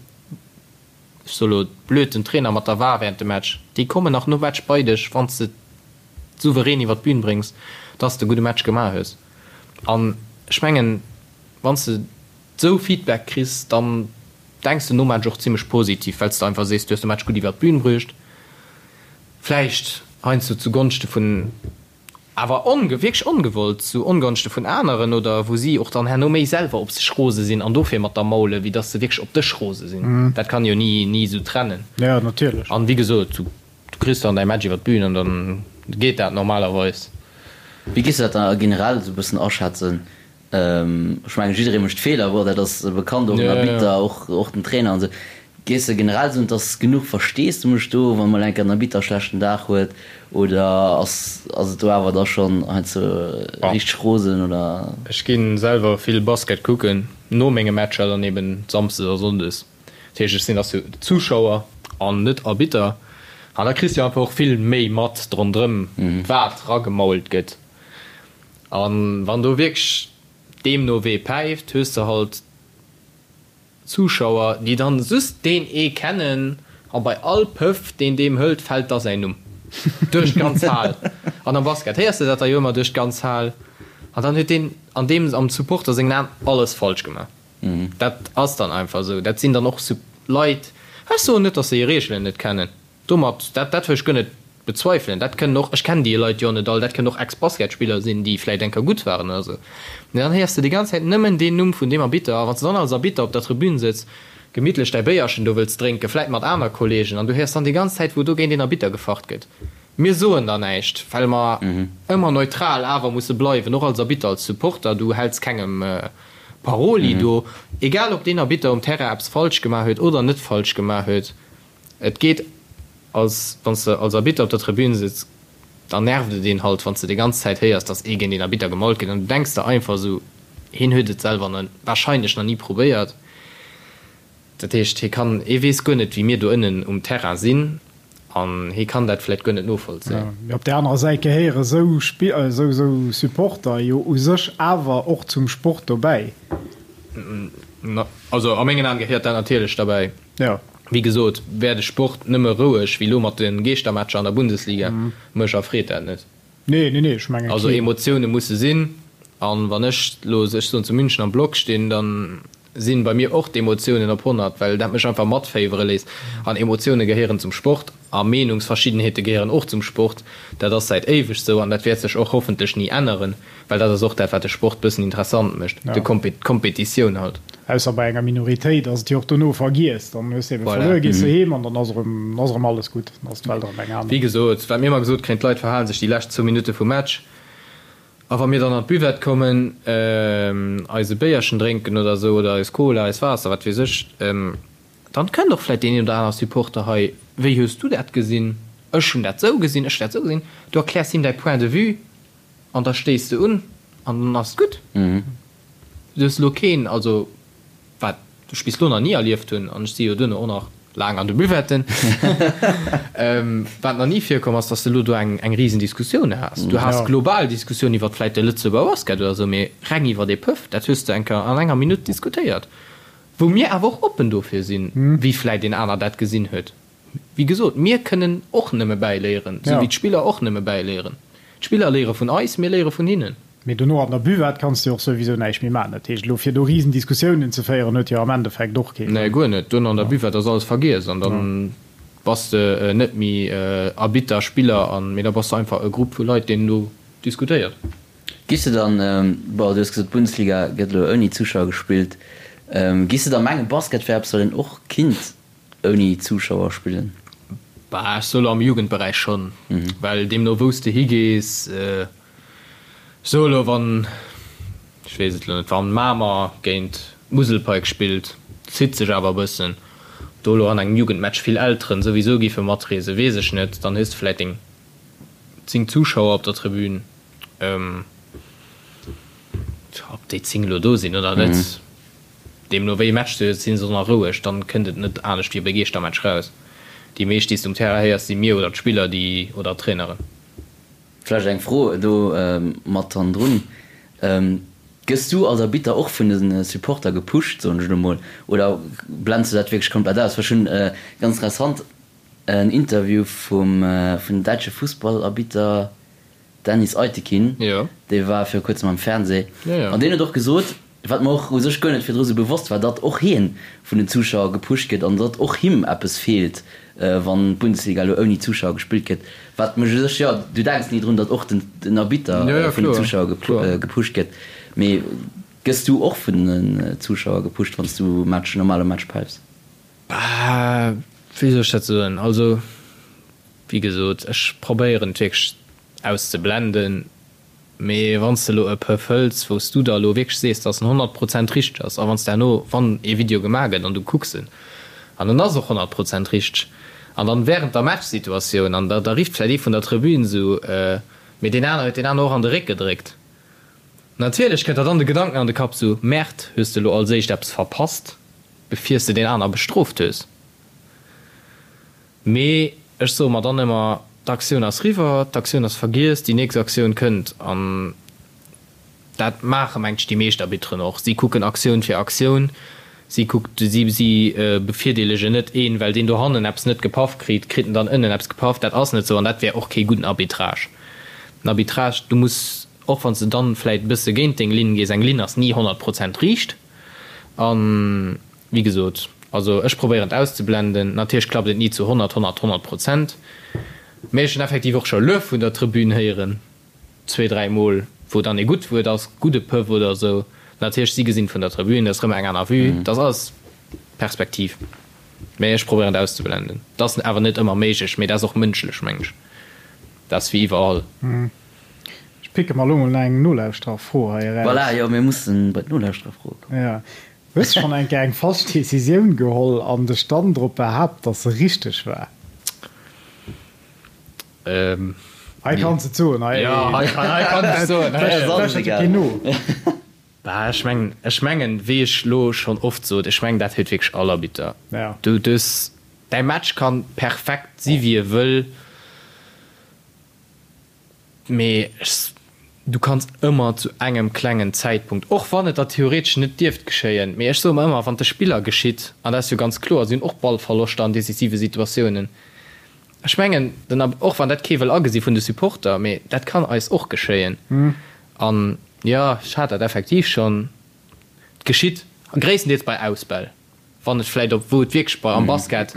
ech soe lo blöd, den Trainer mat der war während dem Match, déi kommen nach nom Match bei dech, wann s de souverän iwwer d'Bün bréngs, dass de e gudde Match gemaach hues. An ech mengen, wann s de esou Feedback kriss, dann denks de nom Match och zimmlech positiv, well s de einfach sees, du hues de Match gutt iwwer d'Bün bruecht. Vläicht heiansdo zu Gonschte vun, awer onge, wierklech ongewollt, zu Ongonschte vun aneren oder wou si och dann herno méi selwer op sech rose sinn an dofir mat der maulen, wéi dass se wierklech op dech rose sinn. Dat kann ee jo ni, ni esou trennen. Jo, natierlech. An wéi gesot, du kriss dann däi Match iwwer d'Bün an dann geet dat normalerweis. Wéi géifs du dat da generell esou e bëssen aschätzen? Ech mengen, jidderee mécht Feeler, bon, dat ass bekannt, och den Arbitter, och, och den Trainer an esou. Géifs de generell soen, et ass genuch Versteesdemech do, wann mol eng Kéier den Arbitter e schlechten Dag huet, oder ass, ass et do awer da schonn heiansdo richteg rosen, oder? Ech gi selwer vill Basket kucken, no menge Matcher dann eben samsdes a sonndes. Dat heescht, ech sinn als Zuschauer an net Arbitter. An da kriss de jo einfach och vill méi mat rondrëm, wat ragemault gëtt. A wann do wierklech deemno wee päift, hues de halt Zuschauer, déi dann just deen ee kennen a bei all Pëff, deen deem hëlt, fält da säin Numm duerch d'ganz Hal. An am Basket héiers de dat da jo ëmmer duerch d'ganz Hal. An dann huet deen an deem am Supporter sengen Aen alles falsch gemaach. Dat ass dann einfach esou. Dat sinn dann och Leit, ech soen net, datt se hir Reegelen net kennen, Domat, dat, dat wëll ech guer net bezweifelen, dat kënnen och, ech kennen déi Leit jo net all, dat kënnen och Ex-Basketspiller sinn, déi vläicht eng Kéier gutt waren oder esou. Mee dann héiers de déi ganz Zäit nëmmen deen Numm vun deem Arbitter. A wann s de dann als Arbitter op der Tribün sëtz, gemittlech däi Béierchen do wëlls drénken, vläicht mat aner Kollegen, an du héiers dann déi ganz Zäit, wou do géint een Arbitter gefacht gëtt. Mir soen da näischt, well mer ëmmer neutral awer musse bleiwen, och als Arbitter, als Supporter. Du häls kengem Paroli do, egal ob deen Arbitter um Terrain eppes falsch gemaach huet oder net falsch gemaach huet. Et geet als wann s de als Arbitter op der Tribün sëtz, da nervt et een halt, wann s de déi ganz Zäit héiers, dass ee géint een Arbitter gemault gëtt an du denks der einfach esou, hien huet et selwer na wahrscheinlech nach ni probéiert. Dat heescht, hie kann, hie weess guer net, wéi mir do ënnen um Terrain sinn an hie kann dat vläicht guer net novollzéien. Mee op där anerer Säit gehéiere sou sou Supporter jo u sech awer och zum Sport dobäi. Also a mengen Aen gehéiert dat natierlech derbäi. Jo. Wéi gesot, wär de Sport nëmme roueg wéi lo mat de Geeschtermatcher an der Bundesliga, mech erfreet dat net. Nee, nee, nee, ech menge Also Emotioune musse sinn, an wann ech lo, ech soen, zu München am Block stinn, dann sinn bei mir och d'Emotiounen op 100, well dat mech einfach matféiwere léisst. An Emotioune gehéieren zum Sport a Meenungsverschiddenheete gehéieren och zum Sport. Dat ass säit éiweg sou an dat wäert sech och hoffentlech ni änneren. Well dat ass och dat, wat de Sport bëssen interessant mécht, de d'Kompetitioun halt. Ausser bei enger Minoritéit ass et jo och dono vergiess. Dann hues de ebe verluer, gees de heem an dann ass erëm, ass erëm alles gutt, dann ass d'Welt erëm eng aner. Wéi gesot, wat mir ëmmer gesot kréien, d'Leit verhale sech déi lescht zwou Minutte vum Match. A wa mir dann an d'Buvette kommen, eis e Béierchen drénken oder esou, oder eis Cola, eis Waasser, wat weess ech, Dann kënnt och vläit deen een oder aner Supporter hei, wéi hues du dat gesinn? Ech hunn dat esou gesinn, ech hunn dat esou gesinn. Du erkläers him däi Point de vue an da stéiss de un an dann ass et gutt. Du hues elo keen, also wat ech bis elo nach ni erlieft hunn, an ech si jo duerno och nach laang an de Buvetten, wat nach ni virkomm ass, dass de elo do eng eng Risendiskussioun has. Du has global Diskussioun iwwert vläit de Lëtzebuerger Basket oder esou, mee reng iwwert ee Pëff, dat hues de eng Kéier an enger Minutt diskutéiert. Wou mir awer och oppen dofir sinn, wéi vläit een aner dat gesinn huet. Wéi gesot, mir kënnen och nëmme bäiléieren, esou wéi d'Spiller och nëmme bäiléieren. D'Spiller léiere vun eis, mir léiere vun hinnen. Mee dono an der Buvette kanns de jo och souwisou näischt méi maachen. Dat heescht, elo fir do Risendiskussiounen ze féieren, huet jo am Endeffekt och kee Sënn. Nee, guer net. Duerno an der Buvette ass alles vergiess an da bass de net méi Arbitter, Spiller an, mee da bass de einfach e Grupp vu Leit, deen do diskutéiert. Giss de dann, bon du hues gesot d'Bundesliga gëtt elo ouni Zuschauer gespillt, giss de da mengen Basket wär eppes wat een och kinnt ouni Zuschauer spillen? Bah ech soe lo am Jugendberäich schonn, well deemno wou s de higees, ech soe lo wann, ech weess et lo net, wann Mamer géint Muselpike spillt, zitt sech awer e bëssen, ob do lo an engem Jugendmatch vill Elteren souwisou giffe matreesen, weess ech net, dann hues de vläit deng 10 Zuschauer op der Tribün. Ob déi 10 elo do sinn oder net, deemno wéi e Match se huet, si se nach roueg, dann kënnt et net anescht wéi op e Geeschtermatch raus. Déi meescht, déi s de um Terrain héiers, si mir oder d'Spiller, déi oder d'Traineren. Vläicht eng Fro do mat hannendrun, Gëss du als Arbitter och vun de Supporter gepusht, soen ech elo mol, oder blends du dat wierklech komplett aus? Well ech hunn, ganz interessant, en Interview vum vun däitsche Fussballarbitter Dennis Aytekin, dee war viru kuerzem am Fernseh, an deen huet och gesot, wat mer och u sech guer net virdru sou bewosst war, datt och hien vun den Zuschauer gepusht gëtt an datt och him eppes feelt, wann d'Bundesliga elo ouni Zuschauer gespillt gëtt. Wat mech u sech, jo, du denks ni drun, datt och den Arbitter vun den Zuschauer gepusht gëtt, mee gëss du och vun den Zuschauer gepusht, wann s du Match, normale Match päifs? Bah, wéi soll ech dat soen? Also, wéi gesot, ech probéieren et wierklech auszeblenden, mee wann s de elo e Pëff hëls, wou s du der elo wierklech sees, dass en 100 Prozent richteg ass, a wann s de herno, wann ee Video gemaach gëtt an du kucks en, an en ass och 100 Prozent richteg, an dann während der Matchsituatioun, an da da rifft vläicht ee vun der Tribün esou, mee deen aner huet deen aner och an de Réck gedréckt. Natierlech kënnt der dann de Gedanken an de Kapp esou, Merde, hues de elo als éischt eppes verpasst? Bevir s de deen aner bestrooft hues. Mee ech soe mer dann ëmmer, d'Aktioun ass riwwer, d'Aktioun ass vergiess, déi nächst Aktioun kënnt. An dat maache mengt ech déi meescht Arbitteren och. Si kucken Aktioun fir Aktioun. Si kuckt, si, si bevirdeelegen net een, well deen dohannen eppes net gepaff kritt, kritt en dann ënnen eppes gepaff. Dat ass net esou an dat wär och kee gudden Arbitrage. Den Arbitrage, du muss, och wann s de dann vläit e bësse géint deng Linn gees, eng Linn ass ni 100 Prozent riicht. An wéi gesot, also ech probéieren et auszeblenden. Natierlech klappt et ni zu 100, 100, 100 Prozent, mee ech hunn effektiv och scho Luef vun der Tribün héieren, zwee, dräi Mol, wou dann ee gutt Wuert ass, gudde Pëff oder esou. Natierlech, si gesinn et vun der Tribün, dat ass erëm eng aner Vue, dat ass alles Perspektiv. Mee ech probéieren et auszeblenden. Dat ass awer net ëmmer méiglech, mee dat ass och mënschlech, meng ech. Dat ass wéi iwwerall. Ech picke mer elo mol nach eng Nolauschtererfro hei eraus. Voilà, jo, mir mussen bei d'Nolauschtererfroe kommen. Jo. Hues schonn eng Kéier eng falsch Decisioun geholl an dech dann drop behaapt, dass se richteg war? Hei kanns et soen. Hei, jo, hei kann ech soen. Hei ass alles egal. Keen no. Bah, ech mengen, ech mengen, wéi ech lo schonn oft sot, ech mengen, dat huet wierklech all Arbitter. Ja. Du, du hues, däi Match kann perfekt si wéi e wëll. Mee du kanns ëmmer zu engem klengen Zäitpunkt, och wann et der theoretesch net dierft geschéien, mee ech soe mer ëmmer, wann et de Spiller geschitt, an dat ass jo ganz kloer, si hunn och Ballverloschter an decisive Situatiounen, ech mengen, den, och wann dat kee wëll agesi vun de Supporter, mee dat kann eis och geschéien. An jo, ech hat dat effektiv schonn, et geschitt gréisstendeels bei Ausbäll, wann et vläicht op, wou et wierklech bei am Basket,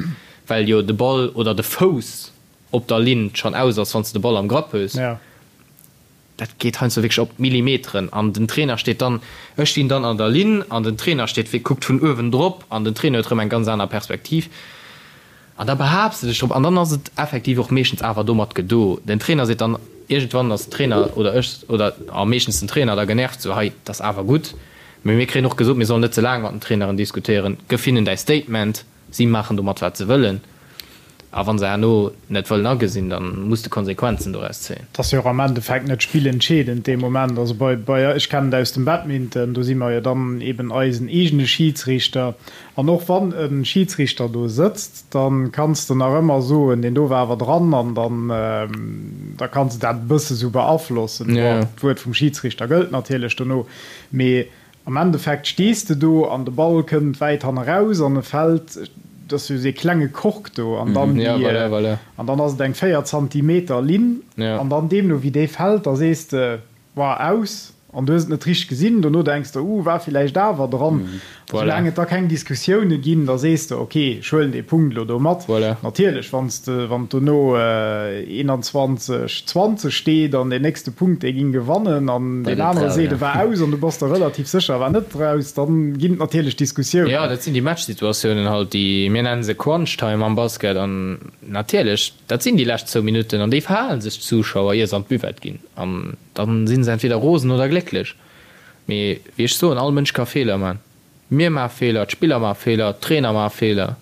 well jo de Ball oder de Fouss op der Linn schonn aus ass, wann s de de Ball am Grapp hues. Dat geet heiansdo wierklech op d'Millimeteren an den Trainer steet dann, ech stinn dann an der Linn an den Trainer steet, kuckt vun uewen drop an den Trainer huet erëm eng ganz aner Perspektiv an da behaapts de dech drop an dann ass et effektiv och meeschtens awer domat gedo. Den Trainer seet dann, iergendwann ass den Trainer oder ech oder a meeschtens den Trainer da genervt, sou hei, dat ass awer gutt, mee mir kréien och gesot, mir sollen net ze laang mat den Traineren diskutéieren, gëff hinnen däi Statement. Si maachen domat wat se wëllen, a wa se herno net wëllen agesinn, da muss de Konsequenzen doraus zéien. Et ass jo och am Endeffekt net spillentscheedend dee Moment. Also bei, bei, ech kennen et aus dem Badminton, do si mer jo dann eben eisen eegene Schidsriichter. An och wann e Schidsriichter do sëtzt, da kanns de nach ëmmer soen, deen do war awer dran, an dann, da kanns de dat e bësse sou beaflossen. Bon, d'Wuert vum Schidsriichter gëllt natierlech dono, mee Am Endeffekt stees de do an de Ball kënnt wäit hanneraus an e fält, et ass jo dee klenge Kork do an dann déi, an dann ass et eng 4 Zantimeter Linn an dann deemno wéi dee fält, da sees de, War aus an du hues et net richteg gesinn. Dono denks de, Uh, war villäicht awer dran. A soulaang et da keng Diskussioune ginn, da sees de, Ok, ech huelen dee Punkt elo do mat. Natierlech, wann s de, wann et dono 21, 20 steet an deen nächste Punkt, dee ging gewannen an deen anere seet, e war aus an du bass der relativ sécher, e war net raus, dann ginn et natierlech Diskussiounen. Jo, dat sinn déi Matchsituatiounen halt, déi, mir nennen se Crunch Time am Basket an natierlech, dat sinn déi lescht zwou Minutten an déi verhale sech d'Zuschauer, ier se an d'Buvette ginn an dann si se entweder rosen oder glécklech. Mee wéi ech soen, all Mënsch ka Feeler man. Mir maache Feeler, d'Spiller maache Feeler, d'Trainer maache Feeler.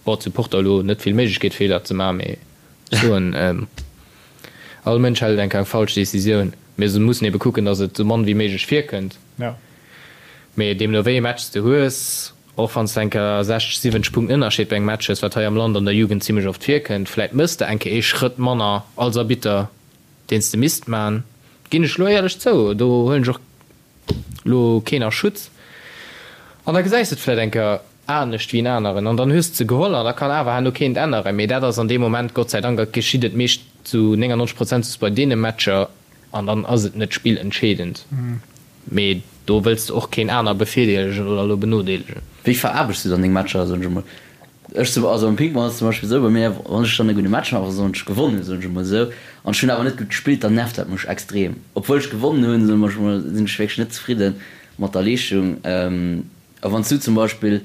Bon, d'Supporter elo net vill Méiglechkeet Feeler ze maachen, mee ech soen, all Mënsch hellt eng Kéier eng falsch Decisioun. Mir mussen ebe kucken, datt et esou mann wéi méiglech virkënnt. Mee deemno wéi ee Match s de hues, och wann s de eng Kéier 60, 70 Punkten Ënnerscheed bei engem Match hues, wat hei am Land an der Jugend zimmlech oft virkënnt, vläit mëss de eng Kéier ee Schrëtt manner als Arbitter, deen s de misst man. Ginn ech elo éierlech zou, do huelen ech och lo keen a Schutz an da gesäis de et vläit eng Kéier anescht wéi en aneren an dann hues de se geholl an da kann awer herno keen et änneren. Mee dat ass an deem Moment, Gott sei Dank, geschitt et meescht zu 99 Prozent just bei deene Matcher an dann ass et net spillentscheedend. Mee do wëlls de och keen aner bevirdeelegen oder elo benodeelegen. Wéi veraarbechts du dann deng Matcher, soen ech emol? Ech zum, also am Ping-Pong ass et zum Beispill esou bei mir, wann ech dann e gudde Match maachen, also wann ech gewonnen hunn, soen ech emol esou, an ech hunn awer net gutt gespillt, dann nervt dat mech extrem. Obwuel ech gewonnen hunn, soen ech emol, sinn ech wierklech net zefridde mat der Leeschtung. A wann s du zum Beispill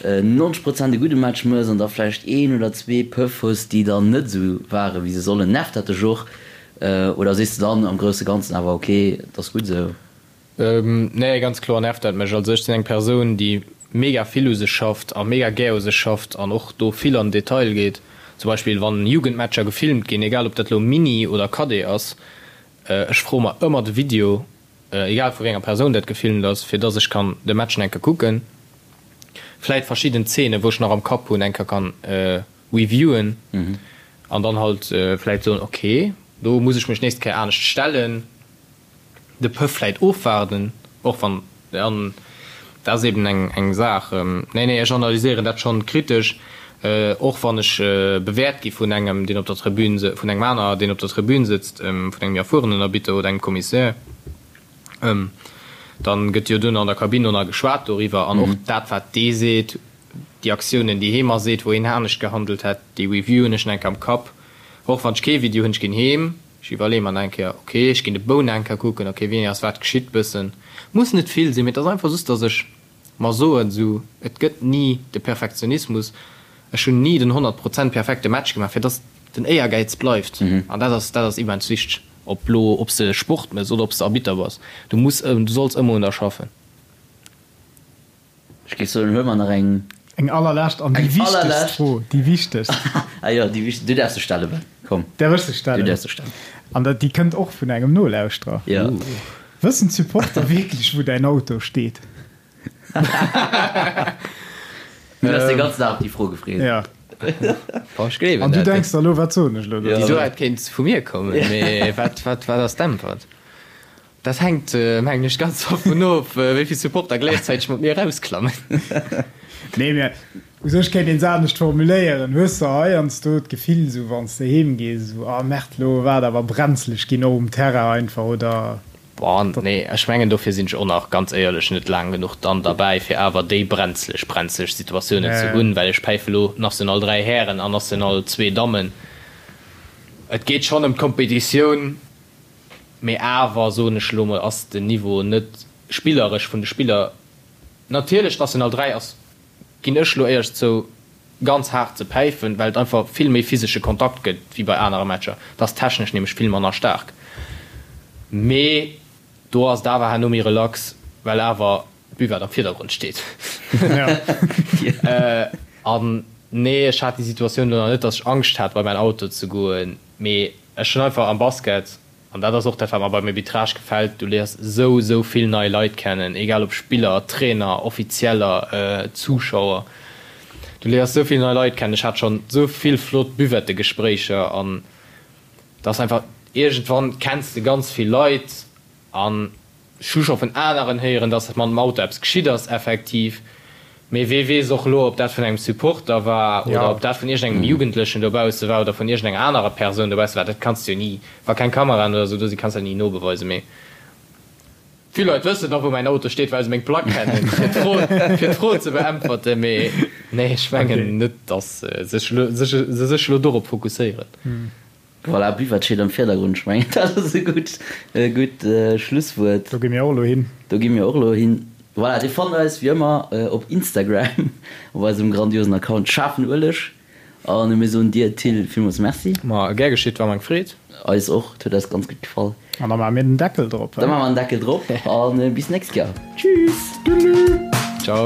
90 Prozent e gudde Match mëss an da vläicht een oder zwee Pëff hues, déi dann net esou ware wéi se sollen, nervt dat dech och? Oder sees de dann am grousse Ganzen awer, ok, et ass gutt esou? Nee, ganz kloer nervt dat mech. Also ech sinn eng Persoun, déi mega vill u sech schafft a mega gär u sech schafft an och do vill an den Detail geet. Zum Beispill wann Jugendmatcher gefilmt ginn, egal ob dat elo Mini oder Cadet ass, ech froe mer ëmmer de Video, egal vu wéi enger Persoun dat gefilmt ass, fir dass ech kann de Match enke kucken. Vläit verschidden Zeenen, wou ech nach am Kapp hunn, eng Kéier kann reviewen an dann halt vläit soen, ok, do muss ech mech nächst Kéier anescht stellen, de Pëff vläit ofwaarden, och wann, an dat ass eben eng eng Saach. Nee, nee, ech analyséieren dat schonn kritesch, och wann ech bewäert gi vun engem, deen op der Tribün, vun engem aner, deen op der Tribün sëtzt, vun engem méi erfuerenen Arbitter oder engem Commissaire. Dann gëtt jo duerno an der Kabinn och nach geschwat doriwwer an och dat wat dee seet, déi Aktiounen déi hee mer seet, wou hien anescht gehandelt hätt, déi reviewen ech nach eng Kéier am Kapp. Och wann ech kee Video hunn, ech ginn heem, ech iwwerleeë mer nach eng Kéier, ok, ech ginn de Bou nach eng Kéier kucken, ok, wéini ass wat geschitt bëssen. Muss net vill sinn, mee et ass einfach just, datt ech mer soen, esou, et gëtt ni de Perfektionismus, ech hunn ni den 100 Prozent perfekte Match gemaach, fir datt den Éiergäiz bleift an dat ass, dat ass immens wichteg. Ob lo, ob s de Sport mëss oder ob s de Arbitter bass, du muss, du solls ëmmer un der schaffen. Ech géif soen, huele mer nach eng. Eng allerlescht an déi wichtegst Fro, déi wichtegst. Ah jo, déi wichtegst, du däerfs se stellen, Ben, komm. Däerf ech se stellen? Du däerfs se stellen. An dat, déi kënnt och vun engem Nolauschterer. Jo. Wëssen d'Supporter wierklech, wou däin Auto steet? Du hues de ganzen Dag op déi Fro gefreet. Ja. Boah, ech gleewen An du dat. denks der elo, wat soen ech elo Déi dozou? Suert kéint vu mir kommen, mee wat, wat, wat ass d'Äntwert? Dat hänkt, mengen ech, ganz dovun of, wéi vill Supporter gläichzäiteg mat mir erausklammen. Nee, mä u sech kéint een se anescht formuléieren. Hues de heiansdo d'Gefill, esou wann s de heem gees, esou, ah Merde, elo war et awer brenzleg ginn, och um Terrain einfach, oder? Boah, nee, ech mengen dofir sinn ech och nach ganz éierlech net laang genuch dann derbäi fir awer déi brenzleg, brenzleg Situatiounen ze hunn, well ech päife lo National 3 Hären an National 2 Dammen. Et geet schonn ëm d'Kompetitioun, mee awer, soen ech elo mol, ass den Niveau net spilleresch vun de Spiller. Natierlech National 3 ass, ginn ech lo éierlech zou, ganz haart ze päifen, well et einfach vill méi physesche Kontakt gëtt wéi bei anere Matcher. Et ass technesch nämlech vill manner staark. Mee do ass et awer herno méi relax, well awer d'Buvette am Virdergrond steet. An nee, ech hat déi Situatioun elo nach net, datt ech Angscht hat bei mäin Auto ze goen, mee ech hunn einfach am Basket An dat ass och dat, wat mer beim Arbitrage gefält, Du léiers esou, esou vill nei Leit kennen, egal ob Spiller, Trainer, Offizieller, Zuschauer. Du léiers esou vill nei Leit kennen. Ech hat schonn esou vill flott Buvettegespréicher an et ass einfach, iergendwann kenns de ganz vill Leit an Ech hu scho vun aneren héieren, dass mam Auto eppes geschitt ass, effektiv. Mee wee weess och elo, ob dat vun engem Supporter war oder ob dat vun iergendengem Jugendlechen dobausse war oder vun iergendenger anerer Persoun dobausse war. Dat kanns de jo ni, wa keng Kameraen oder esou do sinn, kanns de dat ni nobeweisen. Mee vill Leit wëssen och, wou mäin Auto steet, well se meng Plack kennen, fir d'Fro, fir d'Fro ze beäntwerten. Mee nee, ech mengen net, dass se sech elo dorop fokusséieren. Voilà, Buvette steet am Virdergrund. Ech mengen, dat ass e gutt, e gutt Schlusswuert. Do gi mir och elo hin. Do gi mir och elo hin. Voilà, Dir fannt eis wéi ëmmer op Instagram op eisem grandiosen Account Schaarfen Ueleg. A mir soen dir, Till, villmools Merci. Ma gär geschitt, war mer eng Freed. Eis och, et huet eis ganz gutt gefall. An da maache mir den Deckel drop, Da maache mer den Deckel drop a bis nächst Joer. Tschüss! Tschüss! Ciao!